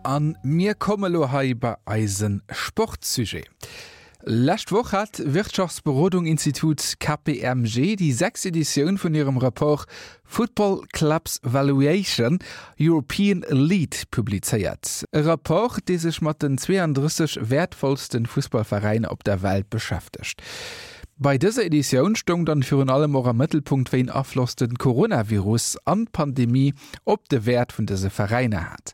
An mir komme lo hei bei eise Sportsujet. Lescht Woch hat d'Wirtschaftsberodung-Institut KPMG déi sechst Editioun vun hirem Rapport Football Clubs Valuation, European Elite publizéiert. E Rapport, dee sech mat den 32 wäertvollste Fussballveräiner op der Welt beschäftegt. Bei dëser Editioun stoung dann virun allem och am Mëttelpunkt, wéi en Afloss de Coronavirus an d'Pandemie op de Wäert vun dëse Veräiner hat.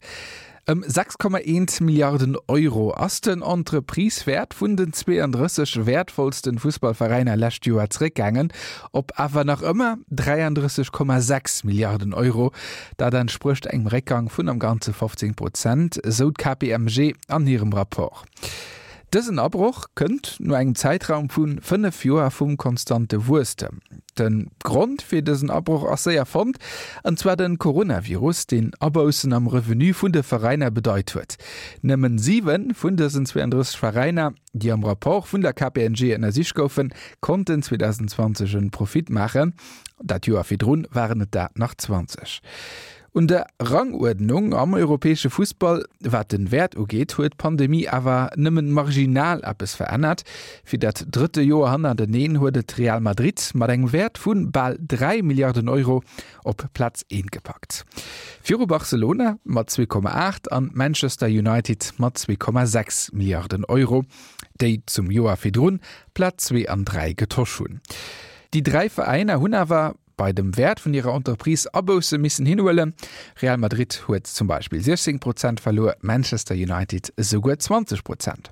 Ëm 6,1 Milliarden Euro ass den Entreprisewäert vun den 32 wäertvollsten Fussballveräiner lescht Joer zeréckgaangen, op awer nach ëmmer 33,6 Milliarden Euro. Dat entsprécht engem Réckgang vun am Ganze 15 Prozent, esou d'KPMG an hirem Rapport. Dësen Abroch kënnt no engem Zäitraum vu 5 Joer vum konstante Wuesstem. De Grond fir dësen Abroch ass séier fonnt, an zwar de Coronavirus, deen Aboussen am Revenu vun de Veräiner bedeit huet. Nëmmen 7 vun dësen 32 Veräiner, déi am Rapport vun der KPMG ënnersicht goufen, konnten 2020 en Profit maachen. Dat Joer virdrun waren et der nach 20. Un der Ranguerdnung am europäesche Fussball, wat den Wäert ugeet, huet d'Pandemie awer nëmmen marginal eppes verännert. Fir dat drëtte Joer hannerteneen huet et Real Madrid mat engem Wäert vu bal 3 Milliarden Euro op Plaz eent gepackt. Viru Barcelona mat 2,8 an Manchester United mat 2,6 Milliarden Euro, déi zum Joer virdrun Plaz zwee an dräi getosch hunn. Déi dräi Veräiner hunn awer bei dem Wäert vun hirer Entreprise Abousse missen hinhuelen. Real Madrid huet zum Beispill 16 Prozent verluer, Manchester United esouguer 20 Prozent.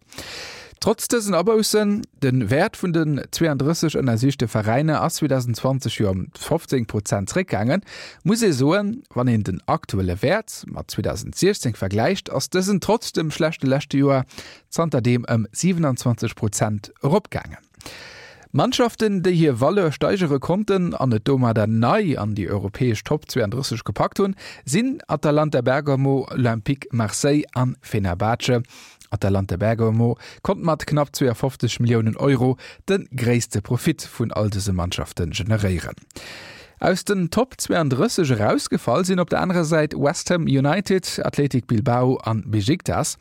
Trotz dësen Aboussen, de Wäert vun den 32 ënnersichte Veräiner ass 2020 jo ëm 15 Prozent zeréckgaangen, muss ee soen, wann een den aktuelle Wäert mat 2016 vergläicht, ass dësen trotz dem schlechte leschte Joer zanterdeem ëm 27 Prozent eropgaangen. Mannschaften, déi hir Valeur steigere konnten an et domadder nei an déi europäesch Top 32 gepackt hunn, sinn Atalanta Bergamo, Olympique Marseille an Fenerbahce. Atalanta Bergamo konnt mat knapp 52 Milliounen Euro de gréisste Profit vun all dëse Mannschafte generéieren. Aus den Top 32 erausgefall sinn op der anerer Säit West Ham United, Athletic Bilbao an Besiktas.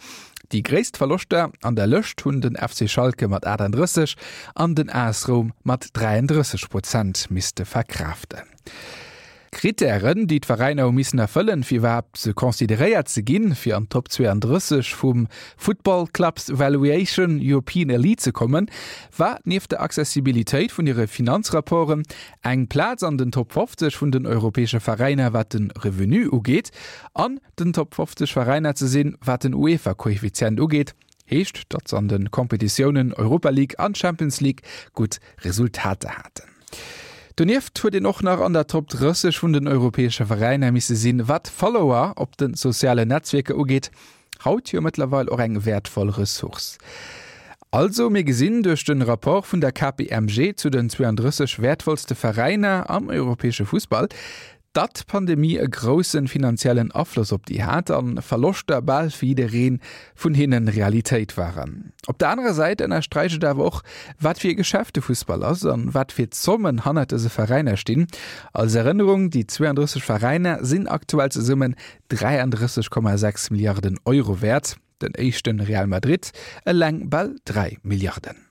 Déi gréisst Verloschter an der Lëscht hunn den FC Schalke mat 38 an den AS Roum mat 33 Prozent misste verkraaften. Krittären, déi d'Veräiner hu missen erfëllen, fir iwwerhaapt consideréiert ze ginn, fir an d'Top 32 vum Football Clubs Valuation European Elite ze kommen, war nieft der Accessibilitéit vun hire Finanzrapporten eng Plaz an den Top 50 vun den europäesche Veräiner, wat de Revenu ugeet, an den Top 50 Veräiner ze sinn, wat den UEFA-Koeffizient ugeet, heescht, datt se an de Kompetitiounen Europa League an Champions League gutt Resultater haten. Donieft huet een och nach an der Top 30 vun den europäesche Veräiner misse sinn, wat Follower op de sozialen Netzwierker ugeet, haut jo mëttlerweil och eng wäertvoll Ressource. Also, mir gesinn duerch de Rapport vun der KPMG zu den 32 wäertvollste Veräiner am europäesche Fussball, Datt d'Pandemie e groussen finanziellen Afloss op déi hat an Verloschter bal fir jiddereen vun hinnen Realitéit waren. Op der anerer Säit ënnersträicht et awer och, wat fir e Geschäft de Fussball ass an wat fir Zommen hannert dëse Veräiner stinn. Als Erënnerung, déi 32 Veräiner sinn aktuell zesummen 33,6 Milliarden Euro wäert, den éischten Real Madrid eleng bal 3 Milliarden.